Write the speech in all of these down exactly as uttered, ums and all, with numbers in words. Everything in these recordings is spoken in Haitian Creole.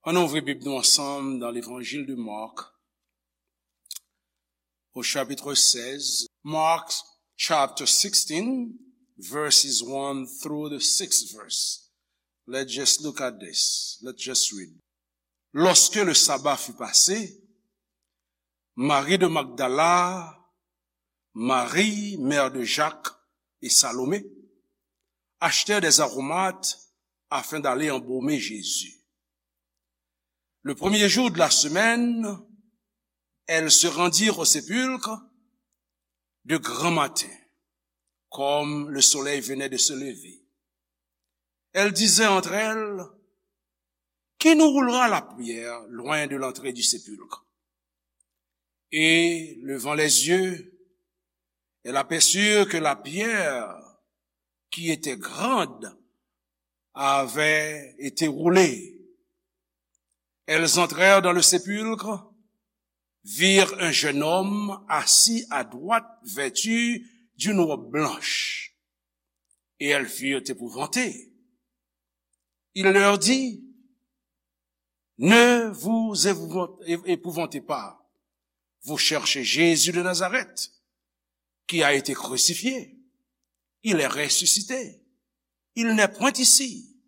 Ann ouvri Bib nou ansanm dans l'Évangile de Marc, au chapitre seize. Mark chapter sixteen, verses one through the sixth verse. Let's just look at this. Let's just read. Lorsque le sabbat fut passé, Marie de Magdala, Marie, mère de Jacques, et Salomé achetèrent des aromates afin d'aller embaumer Jésus. Le premier jour de la semaine, elles se rendirent au sépulcre de grand matin, comme le soleil venait de se lever. Elles disaient entre elles: Qui nous roulera la pierre loin de l'entrée du sépulcre? Et levant les yeux, elles aperçurent que la pierre, qui était grande, avait été roulée. Elles entrèrent dans le sépulcre, virent un jeune homme assis à droite, vêtu d'une robe blanche, et elles furent épouvantées. Il leur dit: Ne vous épouvant-, épouvantez pas. Vous cherchez Jésus de Nazareth, qui a été crucifié. Il est ressuscité. Il n'est point ici.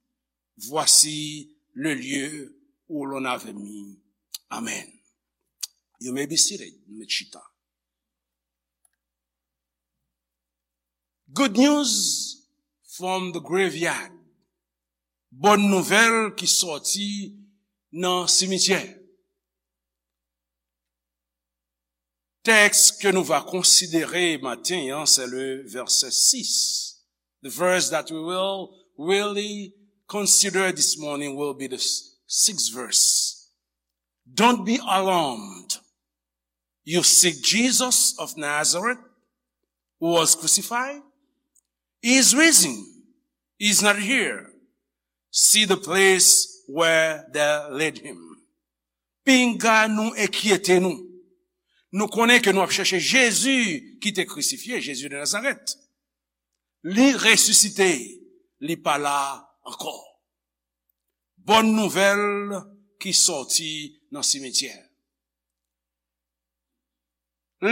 Voici le lieu où l'on avait mis. Amen. You may be seated. Nou mèt chita. Good news from the graveyard. Bòn nouvèl ki sòti nan simityè. Tèks ke nou va konsidere maten an, se le vèsè sis. The verse that we will really consider this morning will be the s-, sixth verse. Don't be alarmed. You seek Jesus of Nazareth, who was crucified? He is risen. He is not here. See the place where they laid him. Pinga nou enkyete nou. Nou konnen ke nou ap chèche Jezi ki te krisifye, Jezi de Nazarèt. Li resisite, li pa la ankò. Bòn nouvèl ki sòti nan simityè.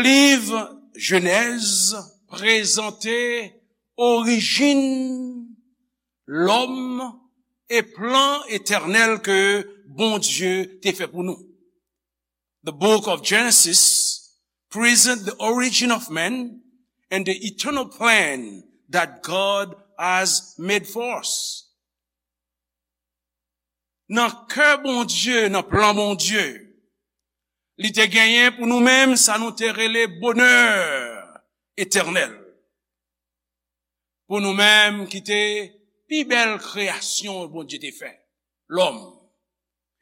Liv Jenèz prezante orijin lòm e plan etènèl ke Bondye te fè pou nou. The book of Genesis present the origin of man and the eternal plan that God has made for us. Nan kè Bondye, nan plan Bondye, li te genyen pou nou menm sa nou te rele bonè etènèl. Pou nou menm ki te pi bèl kreyasyon Bondye te fè, lòm.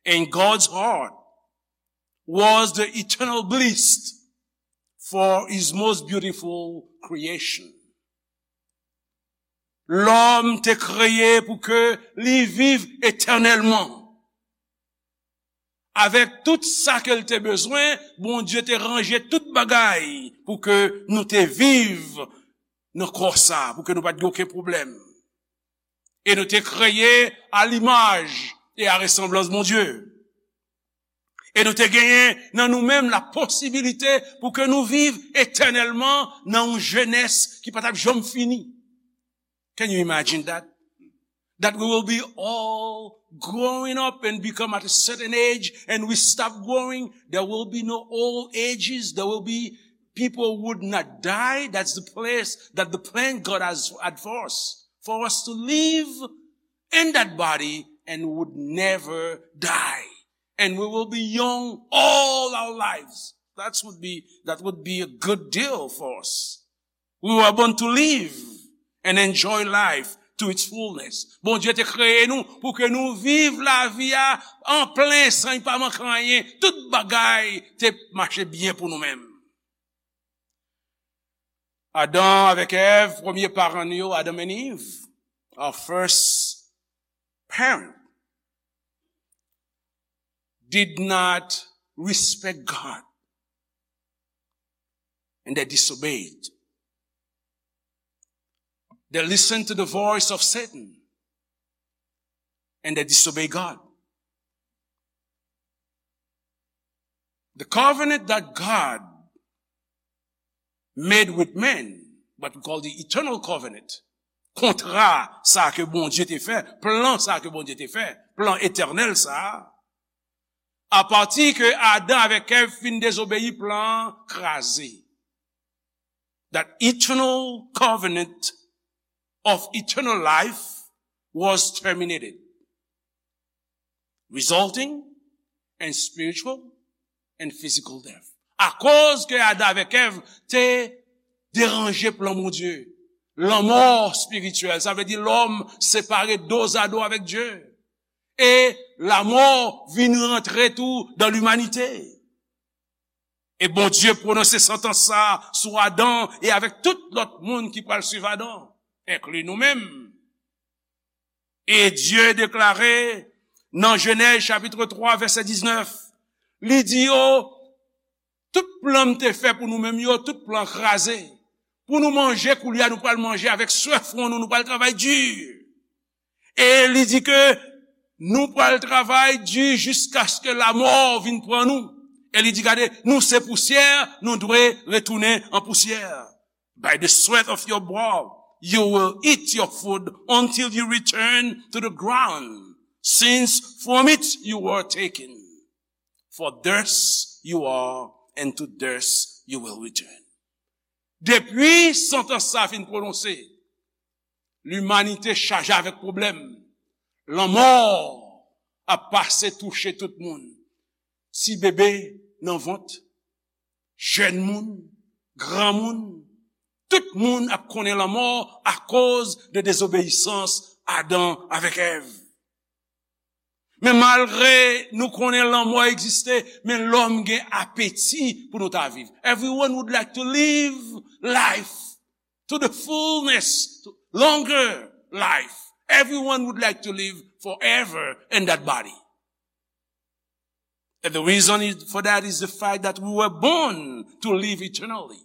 In God's heart was the eternal bliss for his most beautiful creation. Lòm te kreye pou ke li viv etènèlman. Avèk tout sa ke l te bezwen, Bondye te ranje tout bagay pou ke nou te viv nan kò sa, pou ke nou pa t gen okenn pwoblèm. E nou te kreye a limaj e a resanblans Bondye. E nou te genyen nan nou menm la posibilite pou ke nou viv etènèlman nan yon jenès ki pa t ap janm fini. Can you imagine that? That we will be all growing up and become at a certain age and we stop growing. There will be no old ages. There will be people would not die. That's the place that the plan God has had for us. For us to live in that body and would never die. And we will be young all our lives. That would be, that would be a good deal for us. We were born to live and enjoy life to its fullness. Bondye te kreye nou pou ke nou viv lavi a an plen san li pa manke anyen. Tout bagay te mache byen pou nou menm. Adan avèk Èv, premye paran nou yo, Adam and Eve, our first parent, did not respect God. And they disobeyed. They listened to the voice of Satan. And they disobeyed God. The covenant that God made with men, what we call the eternal covenant, kontra sa ke Bondye te fè, plan sa ke Bondye te fè, plan etènèl sa, apati ke Adan avèk Èv fin dezobeyi, plan an kraze. That eternal covenant of eternal life was terminated, resulting in spiritual and physical death. Akoz ke Adan avèk Èv te deranje plan Bondye, lanmò espirityèl, sa vle di lòm separe dozado avèk Dye. E lamò vin rantre tou dan limanite. E Bondye pwononse santans sa sou Adan e avèk tout lòt moun ki pral swiv Adan, enkli nou menm. E Dye deklare nan Jenèz chapit twa, vèsè diznèf, li di yo, tout plan m te fè pou nou menm yo, tout plan kraze. Pou nou manje, koulye a nou pral manje avèk swè fwon nou, nou pral travay di. E li di ke nou pral travay di jiskaske lamò vin pran nou. E li di, gade, nou se pousyè, nou dwe retounen an pousyè. By the sweat of your brow, you will eat your food until you return to the ground, since from it you were taken. For dust you are, and to dust you will return. Depi santans sa fin pwononse, limanite chaje avèk pwoblèm. Lanmò ap pase touche tout moun. Ti bebe nan vant, jèn moun, granmoun, tout moun ap konnen lanmò akoz de dezobeyisans Adan avèk Èv. Men malgre nou konnen lanmò egziste, men lòm gen apeti pou nou ta viv. Everyone would like to live life to the fullness, to longer life. Everyone would like to live forever in that body. And the reason is, for that is the fact that we were born to live eternally.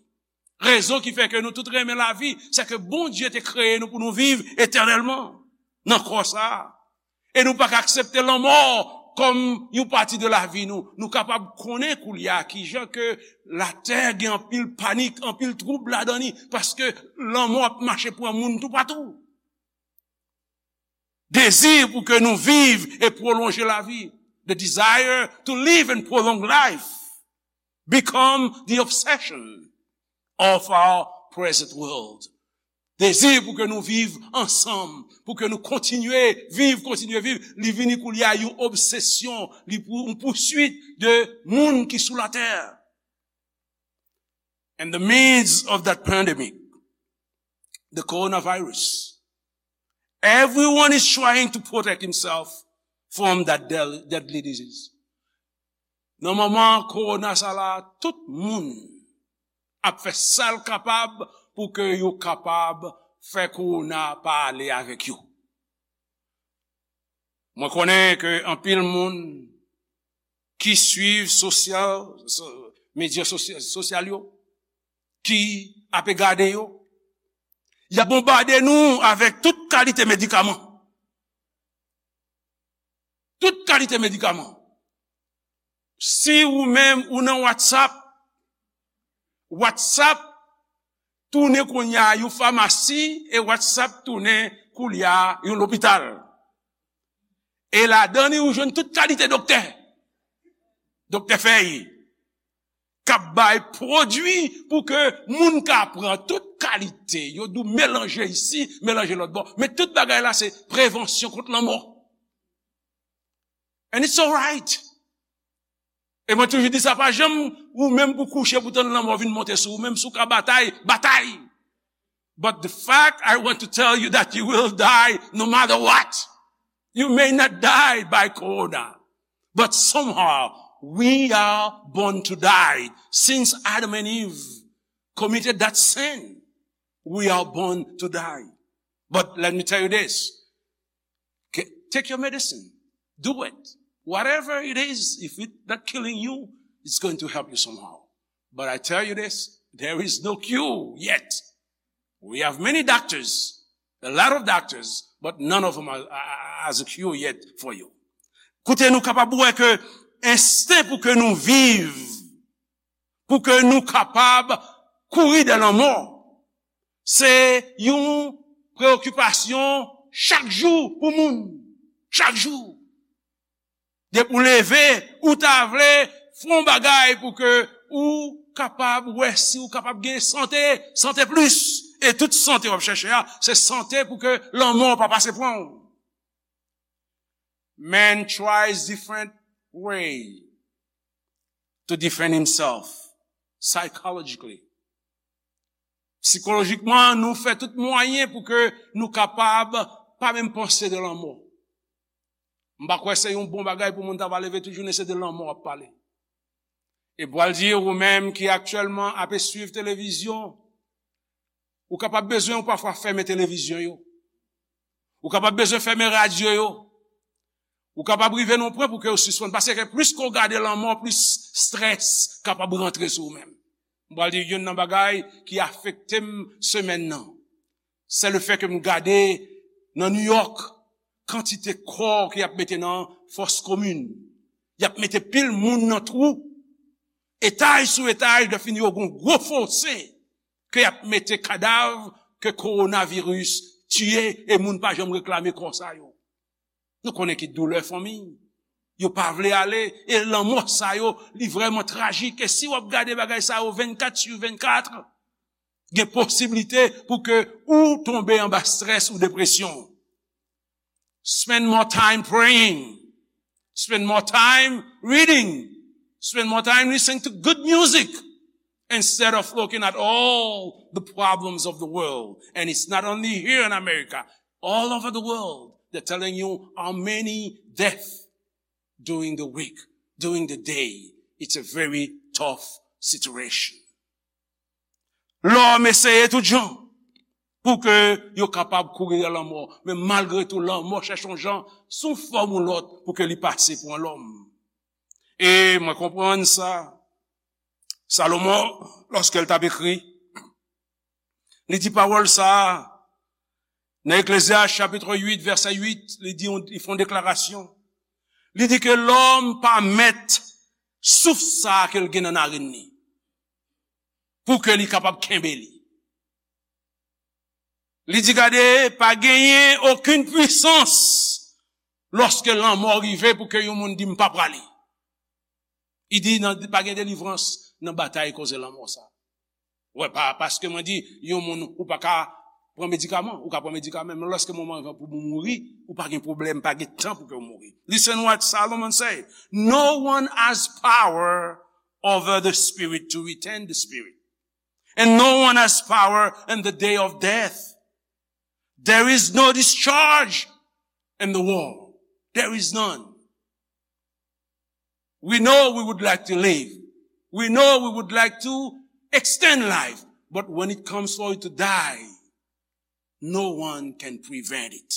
Rezon ki fè ke nou tout renmen lavi, se ke Bondye te kreye nou pou nou viv etènèlman nan kò sa a. E nou pa ka aksepte lanmò kòm yon pati de lavi nou. Nou kapab konnen koulye a kijan ke latè gen anpil panik, anpil twoub ladan li, paske lanmò ap mache pran moun toupatou. Dezi pou ke nou viv e pwolonje lavi. The desire to live and prolong life become the obsession of our present world. Dezi pou ke nou viv ansanm, pou ke nou kontinye viv, kontinye viv, li vini koulye a yon obsesyon, li pou, yon pouswit de moun ki sou latè. In the midst of that pandemic, the coronavirus, everyone is trying to protect himself from that del-, deadly disease. Nan moman kowona sa la, tout moun ap fè sa l kapab pou ke yo kapab fè kowona pa ale avèk yo. Mwen konnen ke anpil moun ki swiv sosyal, so-, medya sosya-, sosyal yo, ki ape gade yo, y ap bonbade nou avèk tout kalite medikaman. Tout kalite medikaman. Si ou menm ou nan WhatsApp, WhatsApp tounen kounye a yon famasi e WhatsApp tounen koulye a yon lopital. E ladan li ou jwenn tout kalite doktè. Doktè fèy k ap bay pwodui pou ke moun ka pran tout kalite. Yo di w melanje isi, melanje lòt bò. Men tout bagay la se prevansyon kont lanmò. And it's alright. E mwen toujou di sa, pa janm ou menm pou kouche pou tann lanmò vin monte sou ou, menm si w ka batay, batay. But the fact I want to tell you that you will die no matter what. You may not die by corona, but somehow we are born to die. Since Adam and Eve committed that sin, we are born to die. But let me tell you this. K-, take your medicine. Do it. Whatever it is, if it's not killing you, it's going to help you somehow. But I tell you this, there is no cure yet. We have many doctors, a lot of doctors, but none of them are, are, are, has a cure yet for you. Koute, nou kapab wè ke ensten pou ke nou viv pou ke nou kapab kouri dè lanmò. Se yon preyokipasyon chak jou pou moun. Chak jou. Depi w leve, ou ta vle fè yon bagay pou ke ou kapab wè si ou kapab gen sante, sante plis. E tout sante w ap chèche a, se sante pou ke lanmò pa pase pran w. Man tries different way to defend himself psychologically. Sikolojikman, nou fè tout mwayen pou ke nou kapab pa menm panse de lanmò. M pa kwè se yon bon bagay pou moun ta va leve tout jounen se de lanmò w ap pale. E pral di ou menm ki aktyèlman ap swiv televizyon, ou kapab bezwen ou pafwa fèmen televizyon yo. Ou kapab bezwen fèmen radyo yo. Ou kapab rive nan yon pwen pou ke ou sispann. Paske plis ke w gade lanmò, plis strès kapab rantre sou ou menm. M pral di youn nan bagay ki afekte m semèn nan. Se le fè ke m gade nan New York, kantite kò ke y ap mete nan fòs komin. Y ap mete pil moun nan twou. Etaj sou etaj, lè fini yo gon gwo fose ke y ap mete kadav ke kowonaviris tiye e moun pa janm reklame kò sa yo. Nou konnen ki doulè fanmi. Yo pa vle ale e lanmò sa yo, li vrèman trajik. E si w ap gade bagay sa yo vennkat sou vennkat, gen posiblite pou ke ou tonbe anba strès ou depresyon. Spend more time praying. Spend more time reading. Spend more time listening to good music instead of looking at all the problems of the world. And it's not only here in America, all over the world. They're telling you how many deaths during the week, during the day. It's a very tough situation. Lòm eseye tout jan pou ke yo kapab kouri dèyè lanmò. Men malgre tou, lanmò chèche yon jan, sou fòm ou lòt, pou ke li pase pou yon lòm. E mwen konprann sa. Salomon, lòske l t ap ekri, li di pawòl sa a nan Eklezyas chapit uit, vèsè uit, li di, li fè yon deklarasyon. Li di ke lòm pa mèt souf sa a ke l gen nan narin li, pou ke li kapab kenbe li. Li di, gade, pa genyen okenn pwisans lòske lanmò rive pou ke yon moun di, "M pa prale." Li di, nan, pa gen delivrans nan batay koze lanmò sa. Wè, pa, paske mwen di, yon moun, ou pa ka pran medikaman, ou ka pran medikaman, men lòske moman rive pou ou mouri, ou pa gen pwoblèm, pa gen tan pou ke ou mouri. Listen what Solomon say. No one has power over the spirit to retain the spirit. And no one has power in the day of death. There is no discharge in the war. There is none. We know we would like to live. We know we would like to extend life. But when it comes for you to die, no one can prevent it.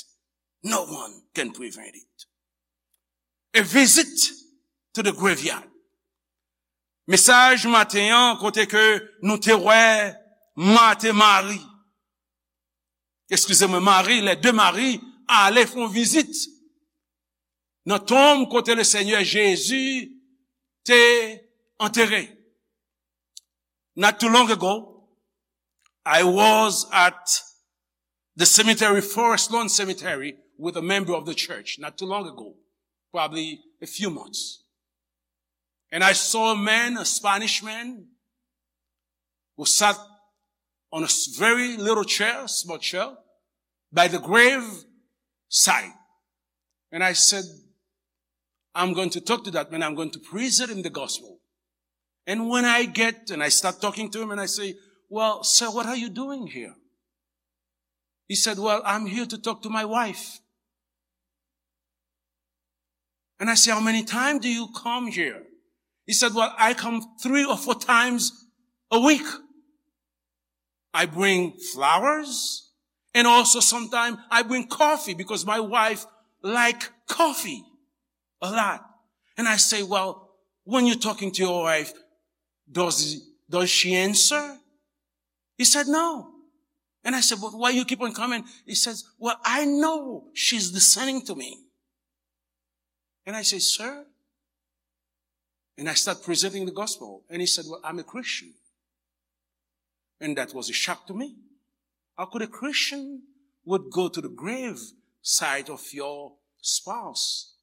No one can prevent it. A visit to the graveyard. Mesaj maten an, kote ke nou te wè Mat e Mari, eskize mwen, Mari, les deux Marie, ale fè yon vizit nan tonm kote le Senyè Jezi te antere. Not too long ago, I was at the cemetery, Forest Lawn Cemetery, with a member of the church, not too long ago, probably a few months. And I saw a man, a Spanish man, who sat on a s-, very little chair, small chair, by the grave side. And I said, "I'm going to talk to that man. I'm going to present him the gospel." And when I get and I start talking to him and I say, "Well, sir, what are you doing here?" He said, "Well, I'm here to talk to my wife." And I say, "How many times do you come here?" He said, "Well, I come three or four times a week. I bring flowers, and also sometimes I bring coffee because my wife like coffee a lot." And I say, "Well, when you're talking to your wife, does, does she answer?" He said, "No." And I said, "But why you keep on coming?" He says, "Well, I know she's listening to me." And I say, "Sir, And I start presenting the gospel. And he said, "Well, I'm a Christian." And that was a shock to me. How could a Christian would go to the grave site of your spouse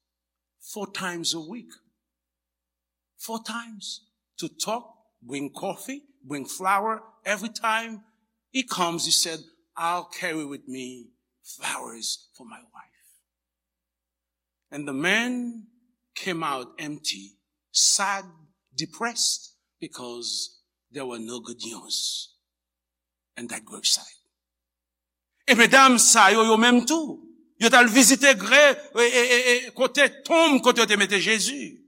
four times a week? Four times to talk, bring coffee, bring flower. Every time he comes, he said, "I'll carry with me flowers for my wife." And the man came out empty, sad, depressed, because there were no good news in that gravesite. E medam sa yo, yo menm tou, yo t al vizite gre, e, e, e, e, kote tonm, kote yo te mete Jezi.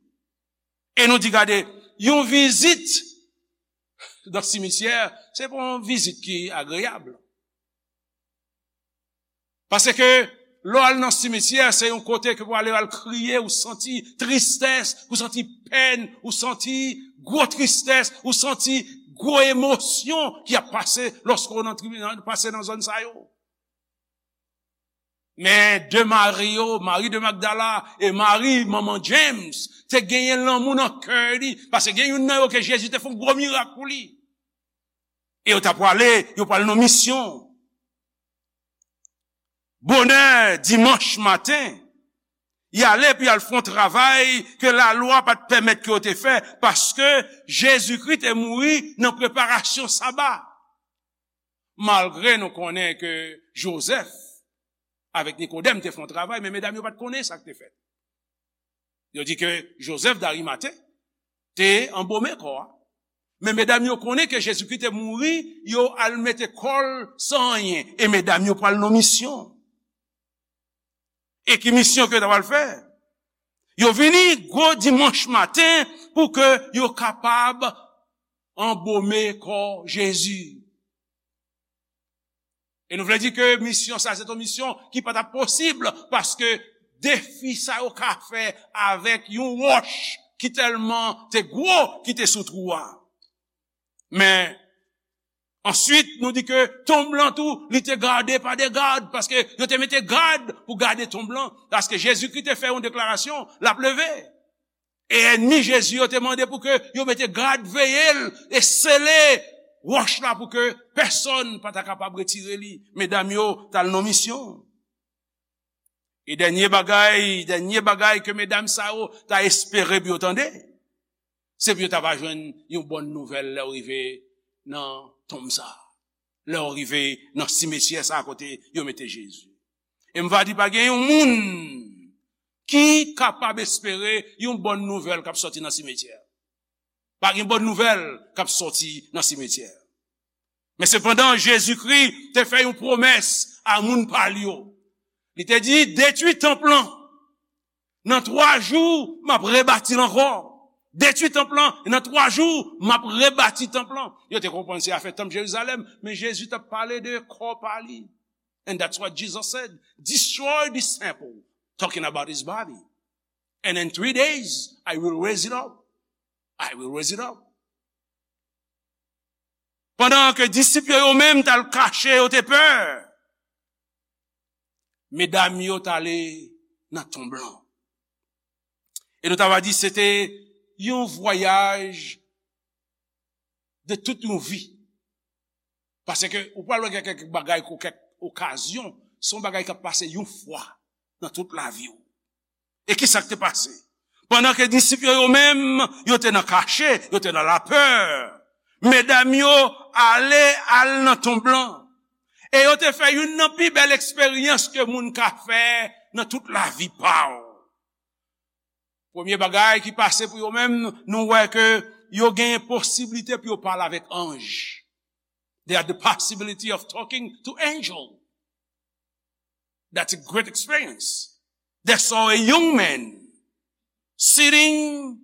E nou di, gade, yon vizit nan simityè, se pa yon vizit ki agreyab. Paske lè w al nan simityè, se yon kote ke pou ale al kriye, ou santi tristès, ou santi pèn, ou santi gwo tristès, ou santi gwo emosyon ki ap pase lòske w nan tribi-, nan, pase nan zòn sa yo. Men de Mari yo, Mari de Magdala e Mari, manman James, te genyen lanmou nan kè li, paske gen youn nan yo ke Jezi te fè yon gwo mirak pou li. E yo t ap prale, yo pral nan misyon. Bonè dimanch maten, y ale pou y al fè yon travay ke lalwa pa t pèmèt ke yo te fè, paske Jezikri te mouri nan preparasyon saba. Malgre nou konnen ke Jozèf avèk Nikodèm te fè yon travay, men medam yo pa t konnen sa k te fèt. Yo di ke Jozèf Darimate te anbome kò a. Men medam yo konnen ke Jezikri te mouri, yo al mete kò l san anyen. E medam yo pral nan misyon. E ki misyon ke yo ta pral fè? Yo vini gwo dimanch maten pou ke yo kapab anbome kò Jezi. E nou vle di ke misyon sa, se yon misyon ki pa t ap posib, paske defi sa yo ka fè avèk yon wòch ki tèlman te gwo, ki te sou twou a. Men, answit, nou di ke tonm lan tou, li te gade pa de gad, paske yo te mete gad pou gade tonm lan, paske Jezikri te fè yon deklarasyon, l ap leve. E ènmi Jezi yo te mande pou ke yo mete gad veye l e sele wòch la pou ke pèsonn pa ta kapab retire li. Medam yo t al nan misyon. E dènye bagay, dènye bagay ke medam sa yo ta espere pou yo tande, se pou yo ta va jwenn yon bòn nouvèl lè yo rive nan tonm sa a. Lè yo rive nan simityè sa a kote yo mete Jezi. E m va di, pa gen yon moun ki kapab espere yon bòn nouvèl k ap sòti nan simityè. Pa gen bòn nouvèl k ap sòti nan simityè. Men sepandan, Jezikri te fè yon pwomès a moun pa l yo. Li te di, "Detwi tanp lan. Nan twa jou, m ap rebati l ankò. Detwi tanp lan, e nan twa jou, m ap rebati tanp lan." Yo te konprann se afè tanp Jerizalèm, men Jezi t ap pale de kò pa li. And that's what Jesus said. "Destroy this temple," talking about his body. "And in three days, I will raise it up. I will raise it up." Pandan ke disip yo, yo menm t al kache, yo te pè, medam yo t ale nan tonm lan. E nou ta va di se te yon vwayaj de tout yon vi. Paske ou pral wè gen kèk bagay, kèk okazyon, se yon bagay k ap pase yon fwa nan tout lavi w. E ki sa k te pase? Pandan ke disip yo, yo menm, yo te nan kache, yo te nan lapè, medam yo ale, al nan tonm lan. E yo te fè youn nan pi bèl eksperyans ke moun ka fè nan tout lavi pa w. Premye bagay ki pase pou yo menm, nou wè ke yo genyen posiblite pou yo pale avèk anj. They had the possibility of talking to angel. That's a great experience. They saw a young man sitting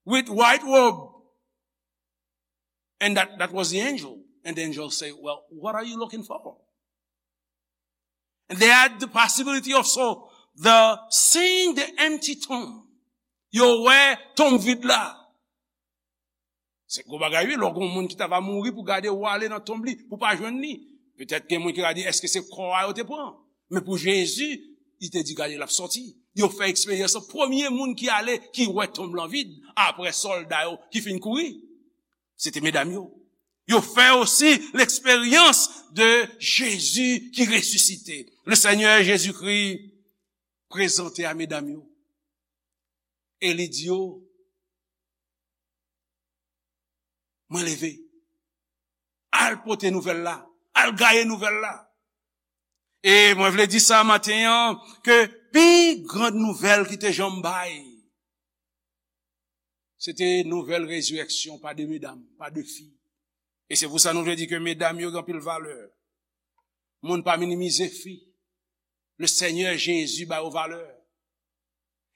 with white robe. And that, that was the angel. And the angel said, "Well, what are you looking for?" And they had the possibility of so the seeing the empty tomb. Yo wè tonm vid la. Se gwo bagay wi, lè w gen yon moun ki ta va mouri pou gade w ale nan tonm li, pou pa jwenn li. Petèt gen moun ki va di, èske se kò a yo te pran? Men pou Jezi, Li te di, gade, l ap sòti. Yo fè eksperyans lan. Premye moun ki ale, ki wè tonm lan vid, apre sòlda yo ki fin kouri, se te medam yo. Yo fè osi l'expérience de Jésus qui ressuscité. Le Seigneur Jésus-Christ prezante a medam yo. E li di yo, mwen leve. Al pote nouvèl la. Al gaye nouvèl la. E mwen vle di sa maten an, ke pi gran nouvèl ki te janm bay, se te nouvèl rezirèksyon pa de medam, pa de fi. E se pou sa nou vle di ke medam yo gen anpil valè. Moun pa minimize fi. Le Seigneur Jésus ba yo valè.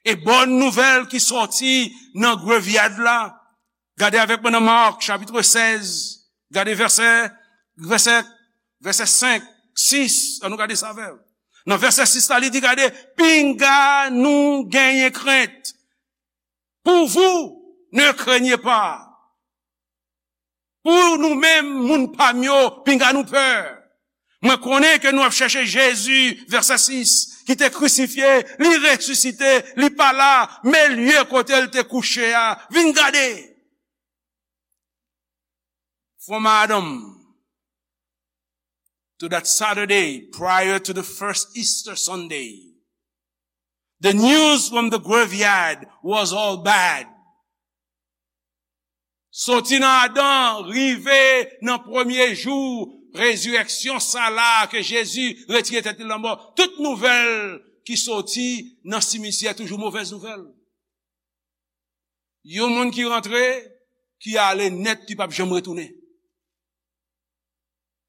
E bòn nouvèl ki sòti nan grevyad la. Gade avèk mwen nan Mark, chapit sèz. Gade vèsè, vèsè, vèsè senk, sis. Ann nou gade sa avè m. Nan vèsè sis la, li di, gade, pinga nou genyen krent. Pour vous, ne craignez pas. Pou nou menm, moun pa m yo, pinga nou pè. Mwen konnen ke nou ap chèche Jezi, vèsè sis, ki te krisifye, li resisite, li pa la, men lye kote l te kouche a, vin gade. From Adam to that Saturday prior to the first Easter Sunday, the news from the graveyard was all bad. Soti nan Adan, rive nan premye jou rezirèksyon sa la ke Jezi retire tèt li lanmò, tout nouvèl ki soti nan simityè toujou movèz nouvèl. Yon moun ki rantre, ki ale nèt, ki p ap janm retounen.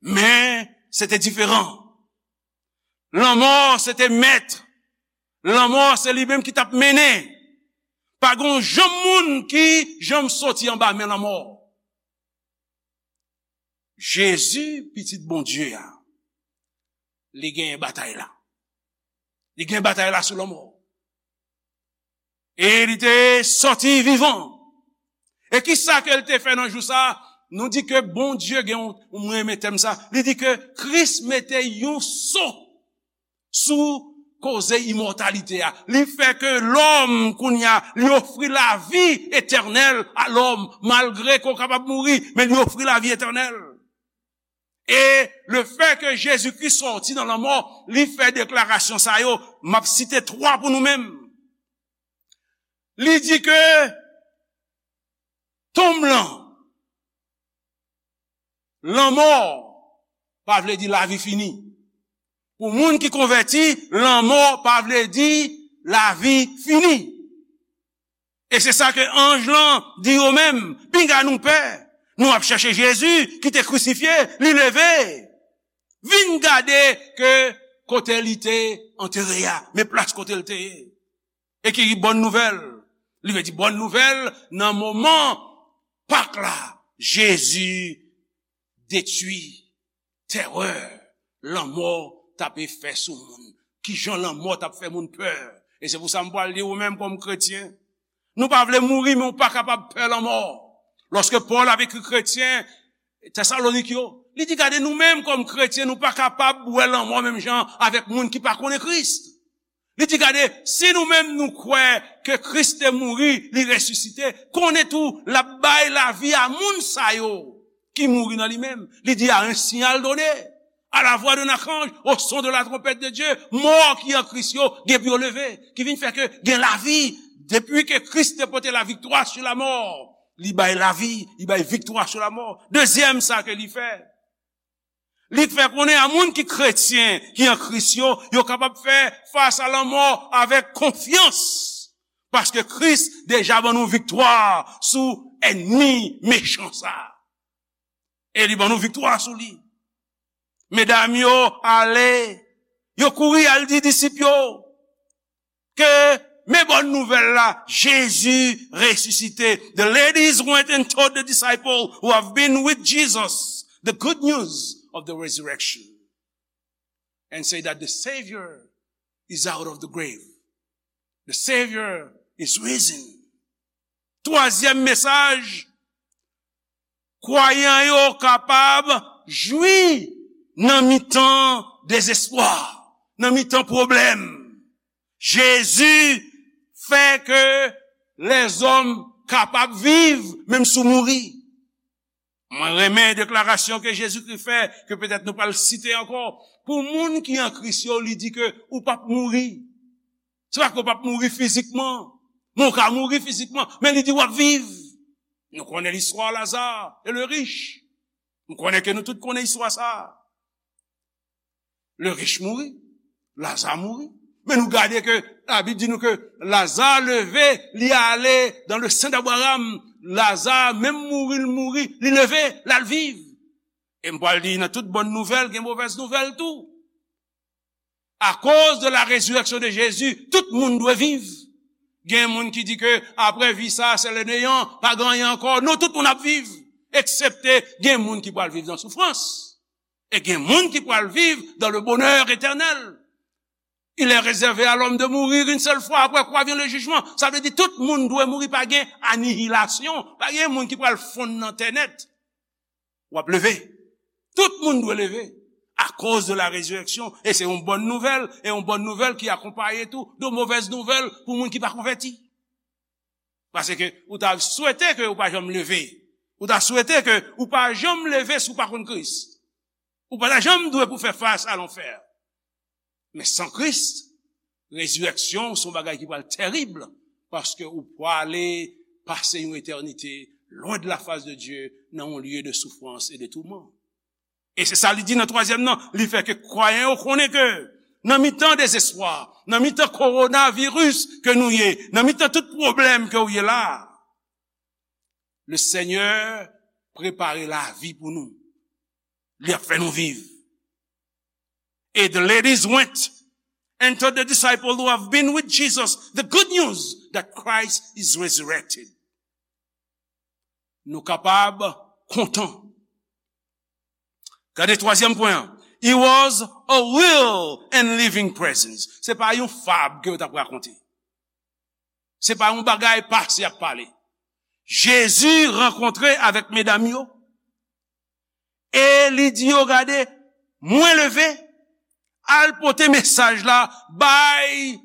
Men, se te diferan. Lanmò, se te mèt. Lanmò, se li menm ki t ap mennen. Pa gen yon janm moun ki janm soti anba men lanmò. Jezi, pitit Bondye a, li genyen batay la. Li gen batay la sou lanmò. E li te sòti vivan. E ki sa ke l te fè nan jou sa? Nou di ke Bondye gen yon, mwen renmen tèm sa, li di ke Kris mete yon so sou koze imòtalite a. Li fè ke lòm, kounye a, li ofri lavi etènèl a lòm, malgre ke w kapab mouri, men li ofri lavi etènèl. E lefètke Jezikri sòti nan lanmò, li fè deklarasyon sa yo, m ap site twa pou nou menm. Li di ke tonm lan, lanmò pa vle di lavi fini. Pou moun ki konvèti, lanmò pa vle di lavi fini. E se sa ke anj lan di yo menm, pinga nou pè. Nou ap chèche Jezi ki te krisifye, li leve. Vin gade ke kote li te antere a, men plas kote l te ye. E ki bòn nouvèl. Li vle di bòn nouvèl nan moman Pak la, Jezi detwi terè lanmò t ape fè sou moun. Kijan lanmò t ap fè moun pè? E se pou sa m pral di ou menm kòm kretyen, nou pa vle mouri, men ou pa kapab pè lanmò. Lòske Pòl ap ekri kretyen Tesalonik yo, li di, gade, nou menm kòm kretyen, nou pa kapab wè lanmò menm jan avèk moun ki pa konnen Kris. Li di, gade, si nou menm nou kwè ke Kris te mouri, li resisite, konnen tou l ap bay lavi a moun sa yo ki mouri nan li menm. Li di, à un signal donné, à la voix d'un archange, au son de la trompette de Dieu, mò ki an Kris yo gen pou yo leve, ki vin fè ke gen lavi. Depi ke Kris te pote la victoire sur la mort, li bay lavi, li bay viktwa sou lanmò. Dezyèm sa ke li fè, li fè konnen a moun ki kretyen, ki an Kris yo, yo kapab fè fas a lanmò avèk konfyans. Paske Kris deja ban nou viktwa sou ènmi mechan sa. E li ban nou viktwa sou li. Medam yo ale, yo kouri al di disip yo ke men bòn nouvèl la, Jezi resisite. The ladies went and told the disciples who have been with Jesus the good news of the resurrection and say that the Savior is out of the grave. The Savior is risen. Twazyèm mesaj, kwayan yo kapab jwi nan mitan dezespwa, nan mitan pwoblèm. Jezi fè ke lèzòm kapab viv, menm si w mouri. Mwen renmen deklarasyon ke Jezikri fè, ke petèt nou pral site ankò. Pou moun ki an Kris yo, li di ke ou p ap mouri. Se pa ke w p ap mouri fizikman, men w ka mouri fizikman, men li di w ap viv. Nou konnen listwa Laza e le rich. Nou konnen ke nou tout konnen istwa sa a. Le rich mouri, Laza mouri. Men nou gade ke Labib di nou ke Laza leve, li ale dans le sein d'Abraham. Laza menm mouri, l mouri, li leve, l al viv. E m pral di nan tout bòn nouvèl, gen movèz nouvèl tou. Akoz de la résurrection de Jésus, tout moun dwe viv. Gen moun ki di ke apre vi sa, se le néant, pa gen anyen ankò. Non, tout moun ap viv, eksepte gen moun ki pral viv nan soufrans. E gen moun ki pral viv dans le bonheur éternel. Il est réservé à l'homme de mourir une seule fois, après quoi vient le jugement. Sa vle di tout moun dwe mouri, pa gen anihilasyon, pa gen moun ki pral fonn nan tè nèt. W ap leve. Tout moun dwe leve. Akoz de la résurrection. E se yon bòn nouvèl, e yon bòn nouvèl ki akonpaye tou de movèz nouvèl pou moun ki pa konvèti. Paske ou ta swete ke ou pa janm leve. Ou ta swete ke ou pa janm leve si w pa konn Kris. Ou pa ta janm dwe pou fè fas a lanfè. Men san Kris, rezirèksyon se yon bagay ki pral tèrib, paske ou prale pase yon etènite lwen de la fas de Dye nan yon lye de soufrans e de touman. E se sa li di nan twazyèm nan, li fè ke kwayan yo konnen ke nan mitan dezespwa, nan mitan kowonaviris ke nou ye, nan mitan tout pwoblèm ke w ye la, le Senyè prepare lavi pou nou. Li ap fè nou viv. E the ladies went and told the disciples who have been with Jesus the good news that Christ is resurrected. Nou kapab kontan. Gade twazyèm pwen an. He was a real and living presence. Se pa yon fab ke yo t ap rakonte. Se pa yon bagay pase y ap pale. Jezi rankontre avèk medam yo. E li di yo, gade, mwen leve, al pote mesaj la bay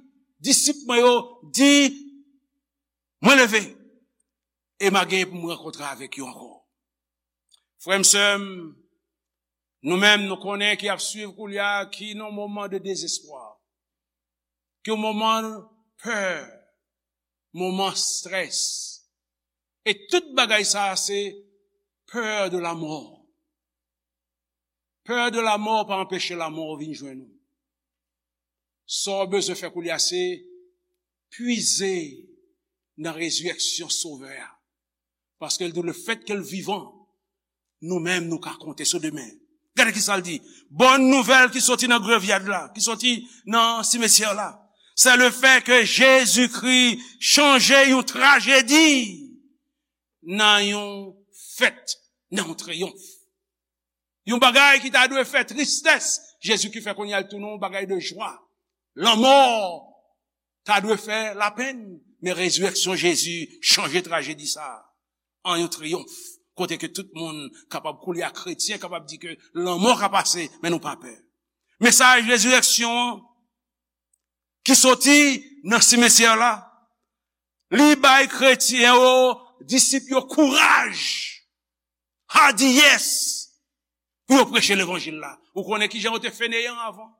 disip mwen yo, di, mwen leve, e m a genyen pou m rankontre avèk yo ankò. Frè m, sè m, nou menm, nou konnen ki ap swiv koulye a, ki nan moman de dezespwa, ki moman pè, moman strès. E tout bagay sa a se peur de la mort. Peur de la mort pa anpeche lanmò vin jwenn ou. Sa w bezwen fè koulye a se pwize nan rezirèksyon Sovè a. Paske l di w, lefètke l vivan, nou menm nou ka konte sou demen. Gade ki sa l di. Bòn nouvèl ki soti nan grevyad la, ki soti nan simetyè la, se le fè ke Jezikri chanje yon trajedi nan yon fèt, nan yon triyonf. Yon bagay ki ta dwe fè tristès, Jezikri fè kounye a l tounen yon bagay de jwa. Lanmò ta dwe fè lapenn, men rezirèksyon Jezi chanje trajedi sa a an yon triyonf, kote ke tout moun kapab koulye a, kretyen kapab di ke lanmò ka pase, men nou pa pè. Mesaj rezirèksyon an ki soti nan simetyè la, li bay kretyen yo, disip yo kouraj, hadiyès pou yo preche levanjil la. Ou konnen kijan yo te feneyan avan?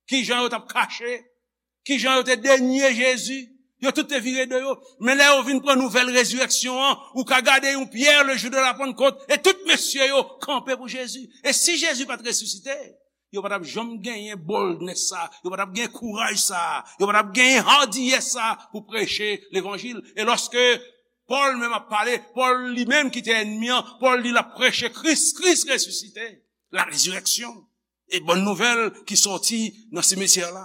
Kijan yo t ap kache? Kijan yo te denye Jezi? Yo tout te vire do yo. Men lè yo vin pran nouvèl rezirèksyon an, ou ka gade yon Pyè le jou de la Pannkòt, e tout mesye yo kanpe pou Jezi. E si Jezi pa t resisite, yo pa t ap janm genyen boldness sa, yo pa t ap gen kouraj sa, yo pa t ap genyen hadiyès sa pou preche levanjil. E lòske Pòl menm ap pale, Pòl li menm ki te ènmi an, Pòl di l ap preche Kris, Kris resisite, la résurrection, e bòn nouvèl ki sòti nan simetyè la.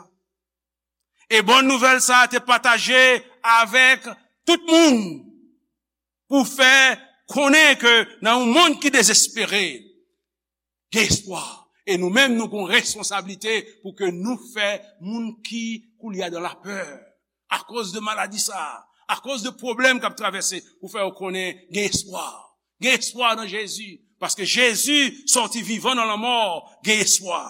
E bòn nouvèl sa a te pataje avèk tout moun pou fè konnen ke nan yon mond ki dezespere, gen espwa. E nou menm, nou gen yon responsablite pou ke nou fè moun ki koulye a dan lapè, akoz de maladi sa a, akoz de pwoblèm k ap travèse, pou fè yo konnen gen espwa. Gen espwa nan Jezi, paske Jezi sòti vivan nan lanmò, gen espwa.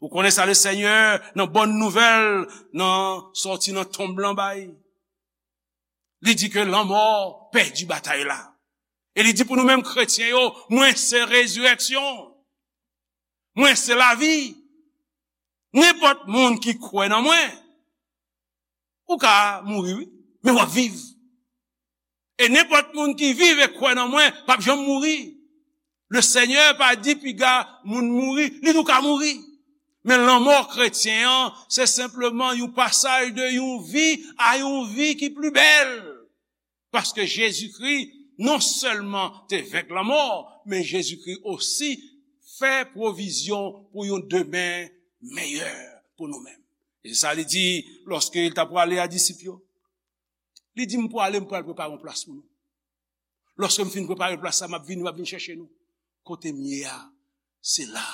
Ou konnen sa Lesenyè, nan bòn nouvèl, nan sòti nan tonb lan bay. Li di ke lanmò pèdi batay la. E li di pou nou menm kretyen yo, mwen se rezirèksyon. Mwen se lavi. Nenpòt moun ki kwè nan mwen, ou ka mouri, wi, men w ap viv. E nenpòt moun ki viv e kwè nan mwen, p ap janm mouri. Lesenyè pa di piga moun mouri, li di w ka mouri. Men lanmò kretyen an, se senpleman yon pasaj de yon vi a yon vi ki pli bèl. Paske Jezikri non sèlman te venk lanmò, men Jezikri osi fè pwovizyon pou yon demen meyè pou nou menm. E se sa li di lòske li t ap prale a disip yo. Li di, "M prale, m pral prepare yon plas pou nou. Lòske m fin prepare plas la, m ap vini, m ap vin chèche nou. Kote m ye a, se la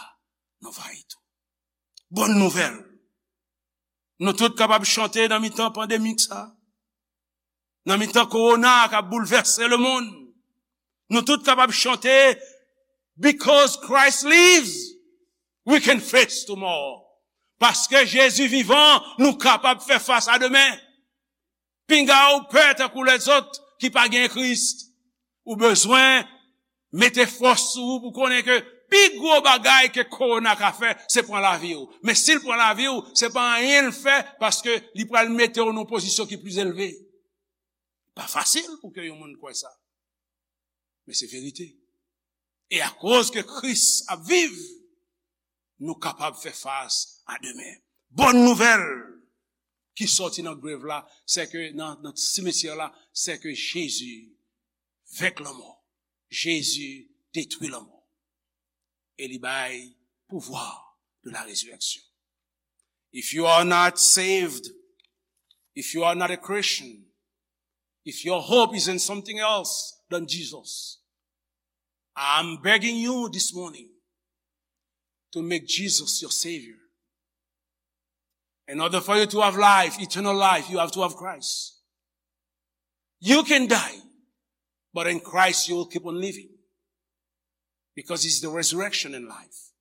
nou va ye tou." Bòn nouvèl. Nou tout kapab chante nan mitan pandemik sa. Nan mitan kowona k ap boulvèse lemonn. Nou tout kapab chante, "Because Christ lives, we can face tomorrow." Paske Jezi vivan, nou kapab fè fas a demen. Pinga ou pè tankou lèzòt ki pa gen Kris. Ou bezwen mete fòs sou ou pou konnen ke pi gwo bagay ke kowona ka fè, se pran lavi w. Men si l pran lavi w, se pa anyen l fè, paske li pral mete w nan yon pozisyon ki pli elve. Pa fasil pou ke yon moun kwè sa. Men se verite. E akoz ke Kris ap viv, nou kapab fè fas a demen. Bòn nouvèl ki sòti nan grev la, se ke nan, nan simetyè la, se ke Jezi venk lanmò. Jezi detwi lanmò. E li bay pouvwa de la résurrection. If you are not saved, if you are not a Christian, if your hope is in something else than Jesus, I'm begging you this morning to make Jesus your Savior. In order for you to have life, eternal life, you have to have Christ. You can die, but in Christ you will keep on living. Because he's the resurrection and life.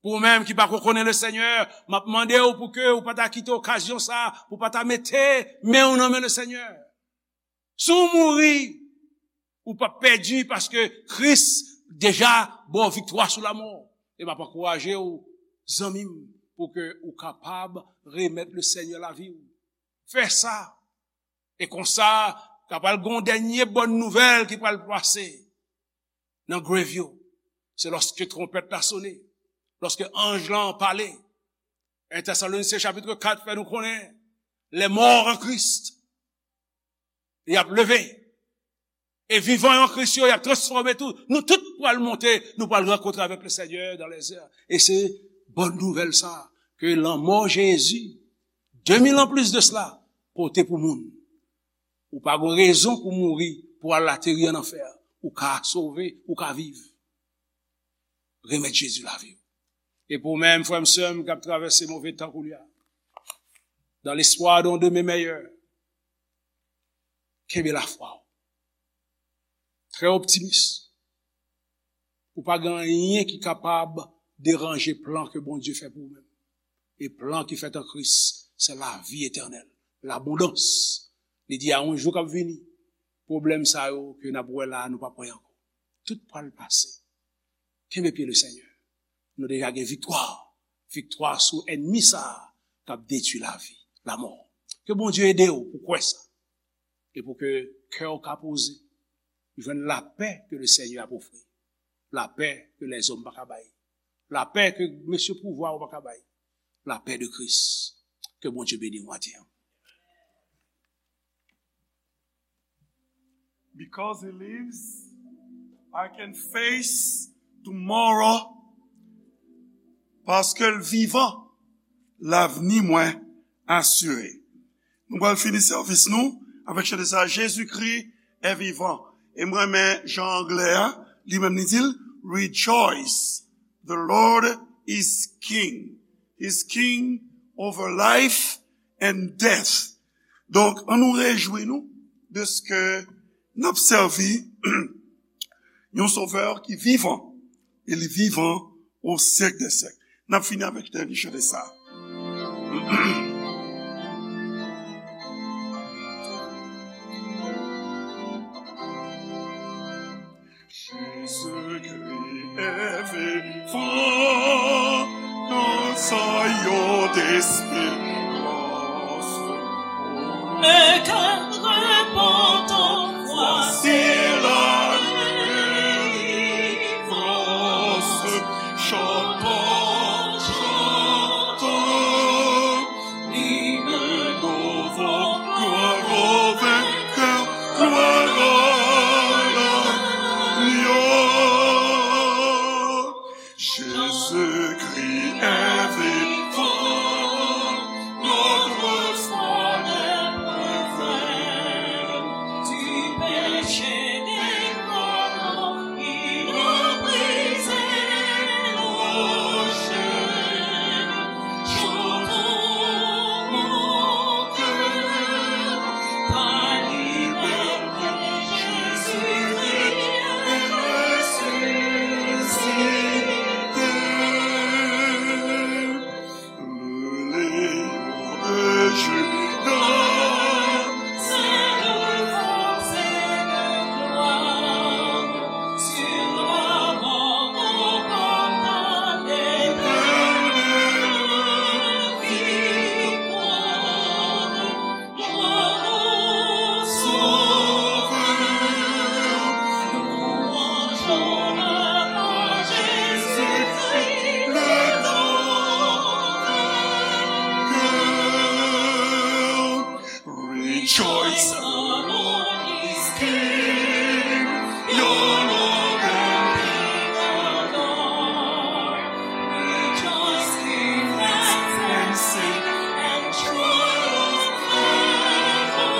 Pou ou menm ki pako konnen Lesenyè, m ap mande w pou ke ou pa ta kite okazyon sa, pou pa ta mete men w nan men Lesenyè. Si w mouri, ou p ap pèdi paske Kris deja ba w viktwa sou lanmò. E m ap ankouraje w, zanmi m, pou ke ou kapab remèt Lesenyè lavi w. Fè sa. E konsa, ka pral gen yon dènye bòn nouvèl ki pral pase nan grev yo. Se lòske twonpèt la sone, lòske anj lan pale. En Tesalonisyen chapit kat fè nou konnen, les morts en Christ, y ap leve. E vivan yo an Kris yo, y ap transfòme tou. Nou tout pral monte, nou pral rankontre avèk Lesenyè dans les airs. E se bòn nouvèl sa, ke lanmò Jezi, de mil an plis de sela, pote pou moun. Ou pa gen rezon pou mouri, pou al ateri an anfè. Ou ka sove, ou ka viv. Remèt Jezi lavi w. E pou ou menm, frè m, sè m, k ap travèse move tan kounye a, dans l'espoir d'un demain meilleur, kenbe lafwa w. Trè optimis. Ou pa gen anyen ki kapab deranje plan ke Bondye fè pou ou menm. E plan ki fèt an Kris, se lavi etènèl, labondans. Li di a yon jou k ap vini, pwoblèm sa yo ke n ap wè la, nou p ap wè ankò. Tout pral pase. Kenbe pye Lesenyè. Nou deja gen viktwa. Viktwa sou ènmi sa a k ap detwi lavi, lanmò. Ke Bondye ede w pou kwè sa. E pou ke kè w ka poze. Jwenn lapè ke Lesenyè ap ofri. Lapè ke lèzòm pa ka bay. Lapè ke mesye pouvwa yo pa ka bay. Lapè de Kris. Ke Bondye beni w maten an. Because he lives, I can face tomorrow. Paske l vivan, lavni mwen asire. Nou pral fini sèvis nou avèk chante sa, Jésus-Christ est vivant. E m renmen jan anglè a, li menm li di l, "Rejoice, the Lord is King. He's King over life and death." Donk, ann nou rejwi nou de ce que n ap sèvi yon Sovè ki vivan, e li vivan au siècle des siècles. N ap fini avèk tèl li chante sa. Jezikri e vivan nan zòrèy yo desperans. E kè repantan, vwasi la delivrans. Chantons, chantons, hymne nouveau, gloire au vainqueur, gloire à l'agneau. Jésus-Christ est vivant, notre espoir est prévail. Du péché des corps, il a brisé nos chaînes. Chantons, mon cœur, ta liberté, Jésus-Christ est ressuscité. Le Lion de Juda, c'est de force et de gloire, sur la mort remporta l'éternelle victoire. Gloire au Sauveur, louange, honneur à Jésus-Christ, le grand vainqueur. Rejoice, the Lord is King, your Lord and King adore. Rejoice, give thanks and sing, and triumph evermore.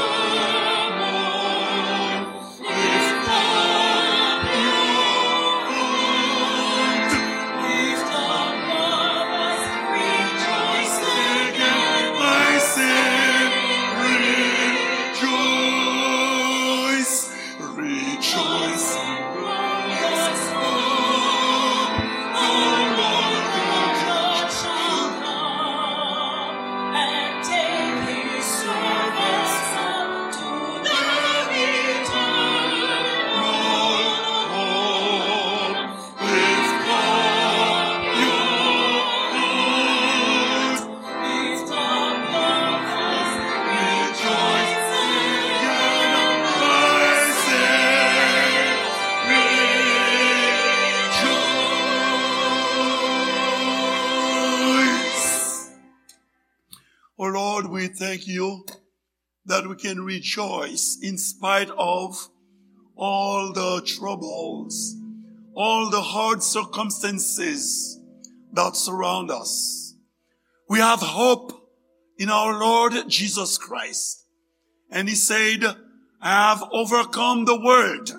Lift up your heart, lift up your voice, rejoice again, my soul, rejoice. Rejoice in glorious hope, the Lord God shall come, and take his servants up to the eternal home. Lift up your heart, lift up your voice, rejoice in your rising, rejoice. Oh Lord, we thank you that we can rejoice in spite of all the troubles, all the hard circumstances that surround us. We have hope in our Lord Jesus Christ. And he said, "I have overcome the world."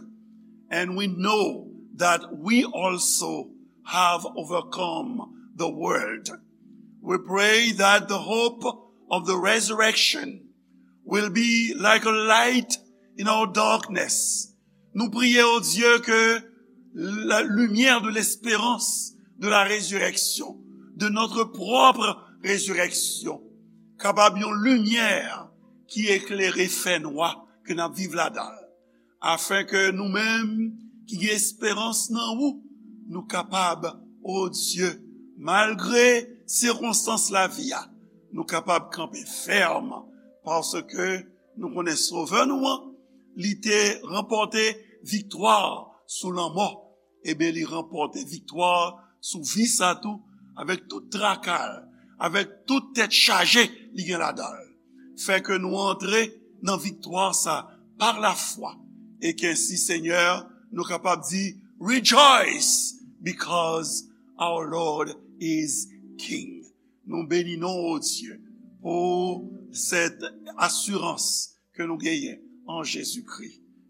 And we know that we also have overcome the world. We pray that the hope of the resurrection will be like a light in our darkness. Nou priye, o Dye, ke la lumière de l'espérance de la résurrection, de notre propre résurrection, kapab yon limyè ki eklere fènwa ke n ap viv ladan l, afin ke nou menm ki gen esperans nan ou, nou kapab, o Dye, malgre sikonstans lavi a, nou kapab kanpe fèm, paske nou konnen Sovè nou an, li te ranpòte viktwa sou lanmò, ebyen, li ranpòte viktwa sou vi sa tou, avèk tout traka l, avèk tout tèt chaje li gen ladan l. Fè ke nou antre nan viktwa sa pa lafwa, e ke ensi, Senyè, nou kapab di, "Rejoice, because our Lord is King." Nou beni non, o Dye, pou sèt asirans ke nou genyen an Jezikri,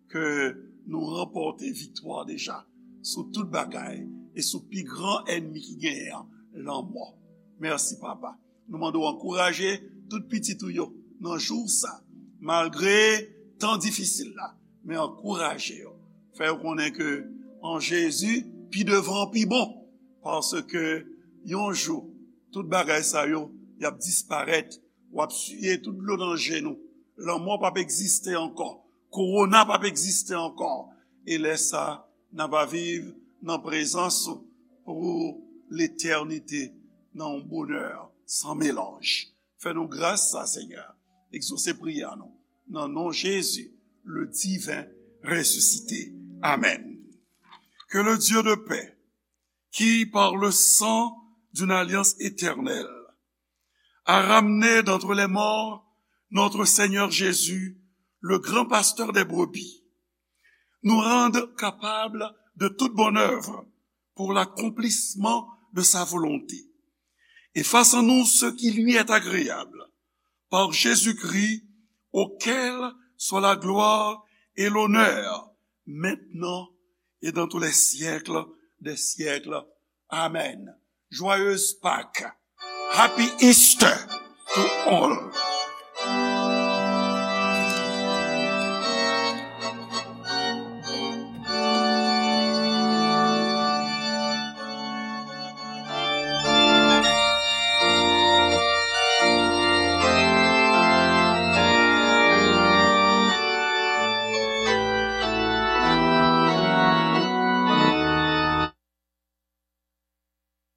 ke nou ranpòte viktwa deja sou tout bagay e sou pi gran ènmi ki genyen an, lanmò. Mèsi, Papa. Nou mande w ankouraje tout pitit ou yo nan jou sa, malgre tan difisil la, men ankouraje yo. Fè yo konnen ke an Jezi, pi devan pi bon, paske Yon jou, tout bagay sa yo, y ap disparèt. W ap siye tout dlo nan je nou. Lanmò p ap egziste ankò. Kowona p ap egziste ankò. E lè sa, n ap viv nan prezans ou pou letènite, nan yon bonè san melanj. Fè nou gras sa, Senyè. Egzose priyè nou. Nan non Jezi, le divin ressuscité. Amen. Que le Dieu de paix, qui par le sang d'une alliance éternelle a ramené d'entre les morts notre Seigneur Jésus, le grand pasteur des brebis, nous rende capables de toute bonne œuvre pour l'accomplissement de sa volonté, et fasse en nous ce qui lui est agréable, par Jésus-Christ, auquel soit la gloire et l'honneur, maintenant et dans tous les siècles des siècles. Amen. Joyeuse Pâques. Happy Easter to all.